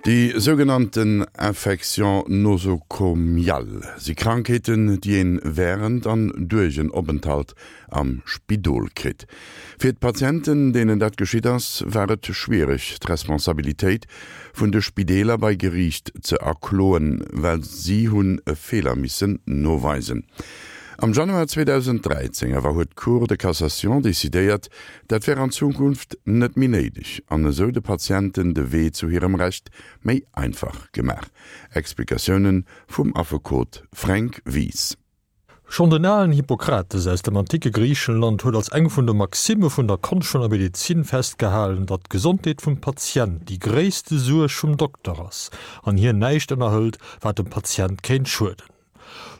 Déi sougenannten Infections nosocomiales si Krankheeten, déi een wärend an duerch en Openthalt am Spidol kritt. Fir d'Patienten, deenen dat geschitt ass, war et schwiereg, d'Responsabilitéit vun de Spideeler bei Geriicht ze erkloen, well si hunn e Feeler missen noweisen. Am Januar 2013 awer huet d'Cour de Cassation decidéiert, dat wär an Zukunft net méi néideg an esou de Patienten de Wee zu hirem Recht méi einfach gemaach. Explikatioune vum Affekot Fränk Wies. Schonn den alen Hippokrates aus dem anticke Griichenland huet als eng vun de Maximme vun der Konscht vun der Medezin festgehalen, datt d'Gesondheet vum Patient déi gréisste Suerg vum Dokter ass an hien näischt ënnerhëlt, wat dem Patient kéint schueden.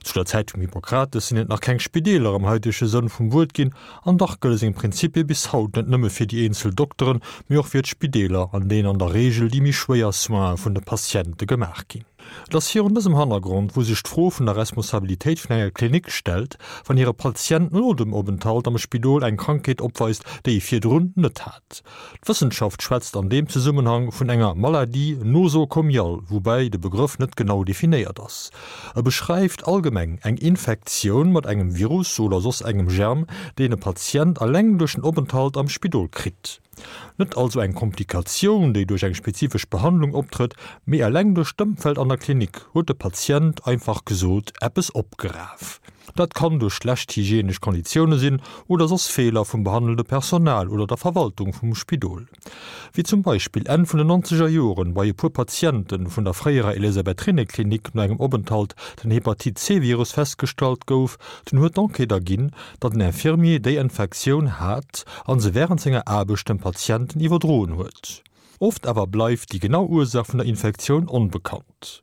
Zu der Zäit vum Hippokrates sinn et nach keng Spideeler am haitege Sënn vum Wuert ginn, an dach gëlle seng Prinzipie bis haut net nëmme fir déi eenzel Dokteren, mee och fir d'Spideeler, an deenen an der Reegel déi méi schwéier Soine vun de Patiente gemaach ginn. Et ass virun dësem Hannergrond, wou sech d'Fro vun der Responsabilitéit vun enger Klinik stellt, wann hire Patient no dem Openthalt am Spidol eng Krankheet opweist, déi e virdrun net hat. D'Wëssenschaft schwätzt an deem Zesummenhang vun enger Maladie nosocomiale, woubäi de Begrëff net genau definéiert ass. E beschreift allgemeng eng Infektioun mat engem Virus oder soss engem Germ, deen e Patient eleng duerch den Openthalt am Spidol kritt. Net also eng Komplikatioun, déi duerch eng spezifesch Behandlung optrëtt, mee eleng duerch d'Ëmfeld an der Klinik huet de Patient, einfach gesot, eppes opgeraf. Dat kann duerch schlecht hygienesch Konditioune sinn oder soss Feeler vum behandelnde Personal oder der Verwaltung vum Spidol. Wéi zum Beispill Enn vun den nonzeger Joren bei e puer Patiente vun der fréierer Elisabeth-Rinne-Klinik no engem Openthalt den Hepatit-C-Virus festgestallt gouf, dunn huet d'Enquête erginn, datt en Infirmier déi Infektioun hat a se wärend senger Aarbecht dem Patienten iwwerdroen huet. Oft awer bleift déi genau Ursaach vun der Infektioun onbekannt.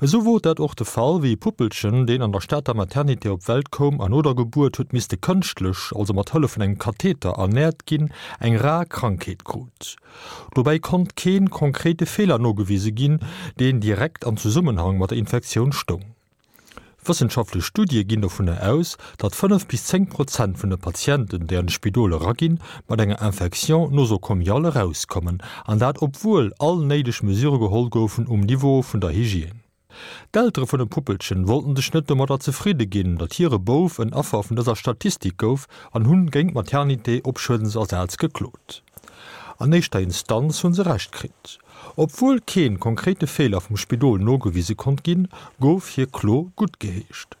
Esou wor dat och de Fall, wéi e Puppelchen, deen an der Stater Maternité op d'Welt koum an no der Gebuert huet misste kënschtlech, also mat Hëllef vun engem Katheter, ernäert ginn, eng rar Krankheet krut. Dobäi konnt kee konkrete Feeler nogewise ginn, deen direkt an Zesummenhang mat der Infektioun stoung. Wëssenschaftlech Studie ginn dovunner aus, datt 5 bis 10 Prozent vun de Patienten, déi an de Spidol eraginn, mat enger Infection nosocomiale erauskommen, an dat obwuel all néideg Mesure geholl goufen um Niveau vun der Hygiène. D'Eltere vun dem Puppelchen wollten sech net domadder zefridde ginn, datt hire Bouf en Affer vun dëser Statistik gouf an hunn géint d'Maternité op Schuedensersaz geklot. An éischter Instanz hunn se Recht kritt. Obwuel keen konkrete Feeler vum Spidol nogewise konnt ginn, gouf hir Klo guttgeheescht.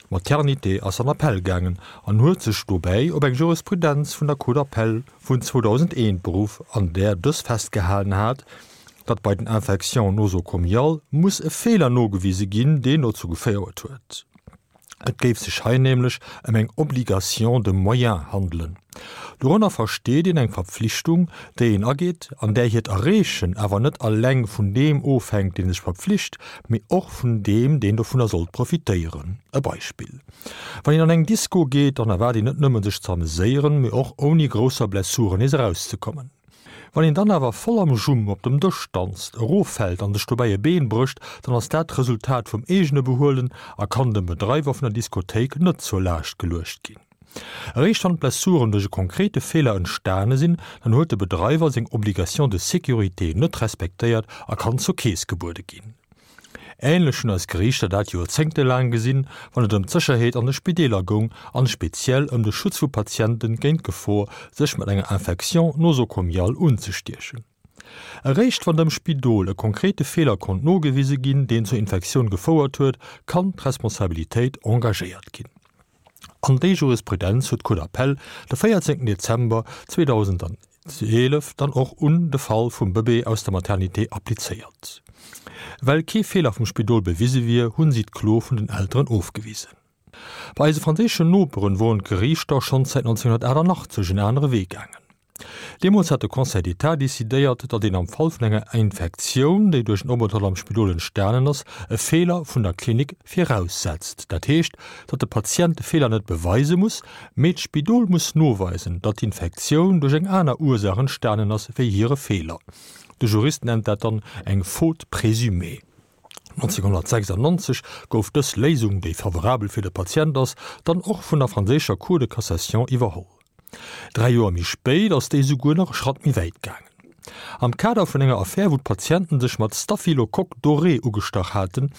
D'Maternité ass an Appell gaangen an huet sech dobäi op eng Jurisprudenz vun der Cour d'appel vun 2001 beruff, an där dës festgehalen hat, datt bei den Infections nosocomiales muss e Feeler nogewise ginn, deen dozou geféiert huet. Et géif sech hei nämlech ëm eng Obligation de moyens handelen. Dorënner versteet een eng Verpflichtung, déi een ageet an där hiert Erreechen awer net alleng vun deem ofhänkt, dee sech verpflicht, mee och vun deem, deen dovunner sollt profitéieren. E Beispill, Wann een an eng Disco geet, dann erwaart een net nëmmen sech ze ameséieren, mee och ouni grousser Blessuren nees erauszekommen. Wann een dann awer voll am Jumm op dem Dësch danzt, eroffält an sech dobäi e Been brécht, dann ass dat d'Resultat vum eegene Behuelen a kann dem Bedreiwer vun der Diskothéik net zur Laascht geluecht ginn. Eréischt wann d'Blessuren duerch e konkrete Feeler entstane sinn, dann huet de Bedreiwer seng Obligation de sécurité net respektéiert a kann zur Keess gebuede ginn. Ähnlech hunn eis Geriichter dat joerzéngtelaang gesinn, wann et ëm d'Sécherheet an de Spideeler goung an speziell ëm de Schutz vu Patienten géint d'Gefor, sech mat enger Infection nosocomiale unzestiechen. Eréischt wann dem Spidol e konkrete Feeler konnt nogewise ginn, deen zur Infektioun gefouert huet, kann d'Responsabilitéit engagéiert ginn. An déi Jurisprudenz huet d'Cour d'appel de 14 Dezember 2011 dann och un de Fall vum Bëbee aus der Maternité applizéiert. Well kee Feeler vum Spidol bewise wier, hunn si d'Klo vun den Elteren ofgewisen. Bei eise franséischen Noperen woren d'Geriichter schonns säit 1988 en anere Wee gaangen. Deemools hat de Conseil d'État decidéiert, datt een am Fall vun enger Infektioun, déi duerch en Openthalt am Spidol entstanen ass, e Feeler vun der Klinik viraussetzt. Dat heescht, datt de Patient de Feeler net beweise muss, mee d'Spidol muss noweisen, datt d'Infektioun duerch eng aner Ursaach entstanen ass wéi hire Feeler. De Jurist nennt dat dann eng Faute présumée. 1996 gouf dës Léisung, déi favorabel fir de Patient ass, dann och vun der franséischer Cour de cassation iwwerholl. 3 Joer méi spéit ass déi souguer nach e Schratt méi wäit gaangen. Am Kader vun enger Affär, wou d'Patienten sech mat Staphylocoque doré ugestach haten,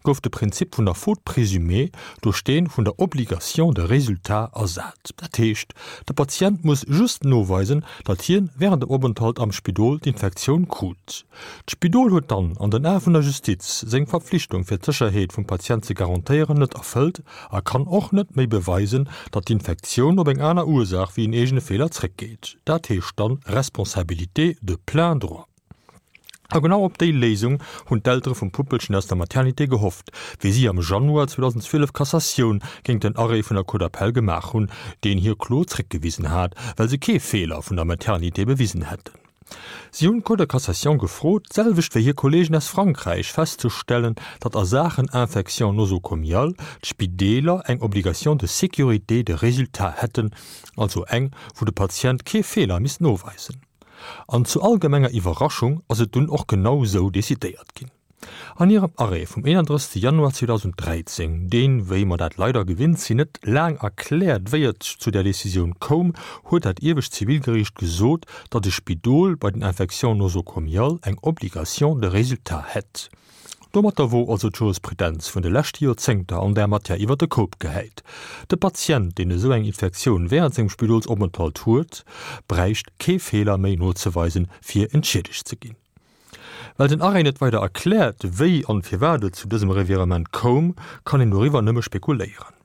gouf de Prinzip vun der Faute présumée duerch dee vun der Obligation de résultat ersat. Dat heescht, de Patient muss just noweisen, datt hien wärend dem Openthalt am Spidol d'Infektioun krut. D'Spidol huet dann an den Ae vun der Justiz seng Verpflichtung fir d'Sécherheet vum Patient ze garantéieren net erfëllt a kann och net méi beweisen, datt d'Infektioun op eng aner Ursaach wéi en eegene Feeler zréckgeet. Dat heescht dann Responsabilité de plein droit. A genau op déi Léisung hunn d'Eltere vum Puppelchen aus der Maternité gehofft, wéi si am Januar 2012 Cassatioun géint den Arrêt vun der Cour d'appel gemaach hunn, deen hir Klo zréckgewisen hat, well se kee Feeler vun der Maternité bewisen hätten. Si hunn d'Cour de Cassation gefrot, d'selwecht wéi hir Kolleegen aus Frankräich, festzestellen, datt a Saachen Infection nosocomiale d'Spideeler eng Obligation de sécurité de résultat hätten, also eng, wou de Patient kee Feeler misst noweisen. An zu allgemenger Iwwerraschung ass et dunn och genau sou decidéiert ginn. An hirem Arrêt vum 31. Januar 2013, deen, wéi mer dat leider gewinnt sinn, net laang erkläert, wéi et zu där Decisioun koum, huet dat iewescht Zivilgeriicht gesot, datt e Spidol bei den Infections nosocomiales eng Obligation de résultat hätt. Domatter wor also d'Jurisprudenz vun de leschte Joerzéngter an där Matière iwwer de Koup gehäit. De Patient, deen esou eng Infektioun wärend sengem Spidolsopenthalt huet, bräicht kee Feeler méi nozeweisen, fir entschiedegt ze ginn. Well den Arrêt net weider erkläert, wéi an firwat et zu dësem Revirement koum, kann een doriwwer nëmme spekuléieren.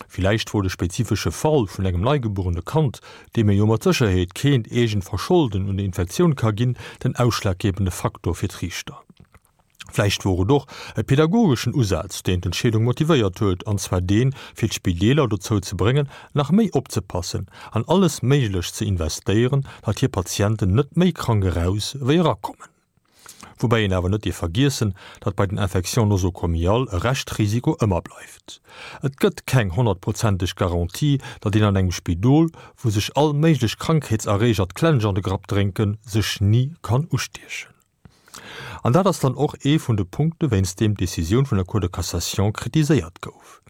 Villäicht wor de spezifesche Fall vun engem neigebuerene Kand, deem ee jo mat Sécherheet keent eegent Verscholden un der Infektioun ka ginn, den ausschlaggebende Faktor fir d'Riichter. Vläicht wor et och e pedagogeschen Usaz, deen d'Entscheedung motivéiert huet, an zwar deen, fir d'Spideeler dozou ze bréngen, nach méi opzepassen an alles Méiglecht ze investéieren, datt hir Patienten net méi krank eraus wéi erakommen. Woubäi een awer net dierf vergiessen, datt bei den Infections nosocomiales e Reschtrisiko ëmmer bleift. Et gëtt keng honnertprozenteg Garantie, datt een an engem Spidol, wou sech all méiglech Krankheetserreeger d'Klensch an de Grapp drénken, sech ni kann ustiechen. An dat ass dann och ee vun de Punkte wéinst deem d'Decisioun vun der Cour de Cassation kritiséiert gouf.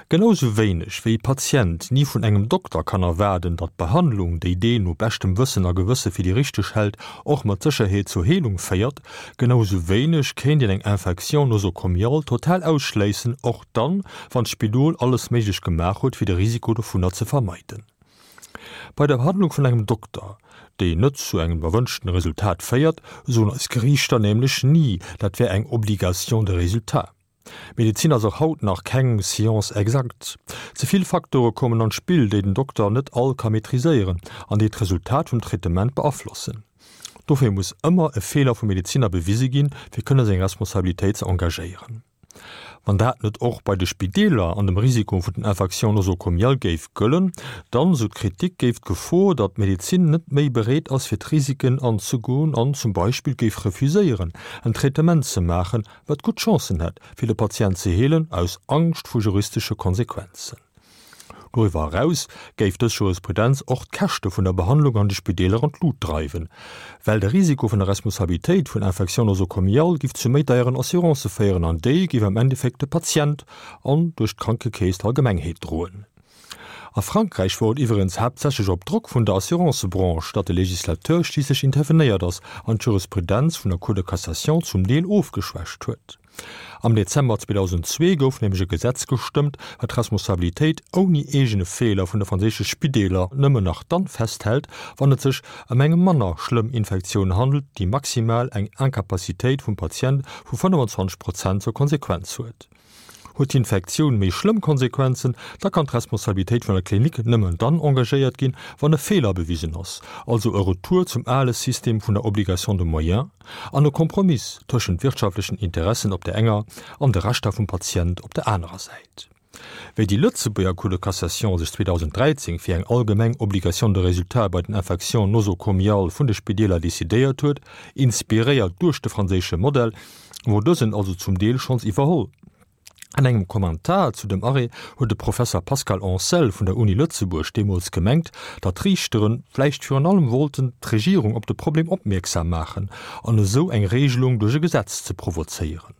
Genau sou wéineg wéi e Patient ni vun engem Dokter kann erwaarden, datt d'Behandlung, déi deen no beschtem Wëssen a Gewësse fir déi richteg hält, och mat Sécherheet zur Heelung féiert, genau sou wéineg kéint een eng Infection nosocomiale total ausschléissen, och dann, wann d'Spidol alles Méiglech gemaach huet, fir de Risiko dovunner ze vermeiden. Bei der Behandlung vun engem Dokter, déi net zu engem erwënschten Resultat féiert, soen eis Geriichter nämlech ni, dat wär eng Obligation de résultat. Medezin ass och haut nach keng Science exacte. Ze vill Faktore kommen an d'Spill, déi den Dokter net all ka maîtriséieren an déi d'Resultat vum Traitement beaflossen. Dofir muss ëmmer e Feeler vum Medeziner bewise ginn, fir kënne seng Responsabilitéit ze engagéieren. Wann dat net och bei de Spideeler an dem Risiko vun den Infections nosocomiales géif gëllen, dann, sou d'Kritik, géif d'Gefor, datt d'Medezin net méi bereet ass fir d'Risiken anzegoen an zum Beispill géif refuséieren en Traitement ze maachen, wat gutt Chancen hätt, fir de Patient ze heelen, aus Angscht vu juristesche Konsequenzen. Doriwwer eraus géif dës Jurisprudenz och d'Käschte vun der Behandlung an de Spideeler an d'Lut dreiwen, well de Risiko vun der Responsabilitéit vun Infections nosocomiales giff zu méi deieren Assurancë féieren an déi giff am Endeffekt de Patient an duerch d'Krankekeess d'Allgemengheet droen. A Frankräich wor et iwweregens haaptsächlech op Drock vun der Assurancebranche, datt de Legislateur schliisslech intervenéiert ass an d'Jurisprudenz vun der Cour de Cassation zum Deel ofgeschwächt huet. Am Dezember 2002 gouf nämlech e Gesetz gestëmmt, wat d'Responsabilitéit ouni eegene Feeler vun de franséische Spideeler nëmmen nach dann festhält, wann et sech ëm eng manner schlëmm Infektioun handelt, déi maximal eng Incapacitéit vum Patient vu 25 Prozent zur Konsequenz huet. Huet d'Infektioun méi schlëmm Konsequenzen, da kann d'Responsabilitéit vun der Klinik nëmmen dann engagéiert ginn, wann e Feeler bewisen ass, also e Retour zum ale System vun der Obligation de moyens an e Kompromiss tëschent wirtschaftlechen Interessen op der enger an de Rechter vum Patient op der anerer Säit. Wéi déi Lëtzebuerger Cour de cassation sech 2013 fir eng allgemeng Obligation de résultat bei den Infections nosocomiales vun de Spideeler decidéiert huet, inspiréiert duerch de franséische Modell, wor dësen also zum Deel schonns iwwerholl. An engem Kommentar zu dem Arrêt huet de Professer Pascal Ancel vun der Uni Lëtzebuerg deemools gemengt, datt d'Riichtere vläicht virun allem wollten d'Regierung op de Problem opmierksam maachen an esou eng Regelung duerch e Gesetz ze provozéieren.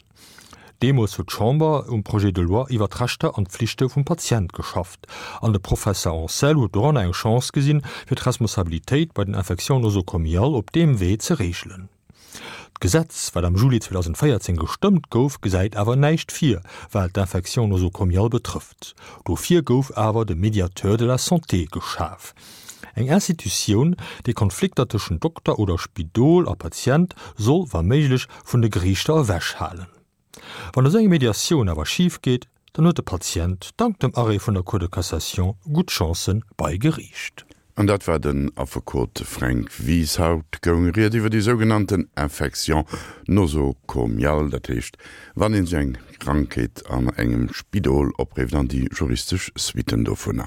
Deemools huet d'Chamber um Projet de loi iwwer d'Rechter an d'Pflichte vum Patient geschafft, an de Professer Ancel huet doranner eng Chance gesinn, fir d'Responsabilitéit bei den Infections nosocomiales op deem Wee ze reegelen. D'Gesetz, wat am Juli 2014 gestëmmt gouf, gesäit awer näischt vir, wat d'Infections nosocomiales betrëfft. Dofir gouf awer de Médiateur de la santé geschaf. Eng Institutioun, déi Konflikter tëschent Dokter oder Spidol a Patient soll wa méiglech vun de Geriichter ewech halen. Wann esou eng Mediatioun awer schif geet, dann huet de Patient dank dem Arrêt vun der Cour de Cassation gutt Chancen bei Geriicht. An dat war den Affekot Fränk Wies. Haut goung Ried iwwer déi sougenannten Infection nosocomiale, dat heescht wann een sech eng Krankheet an engem Spidol oprifft an déi juristesch Suitten dovunner.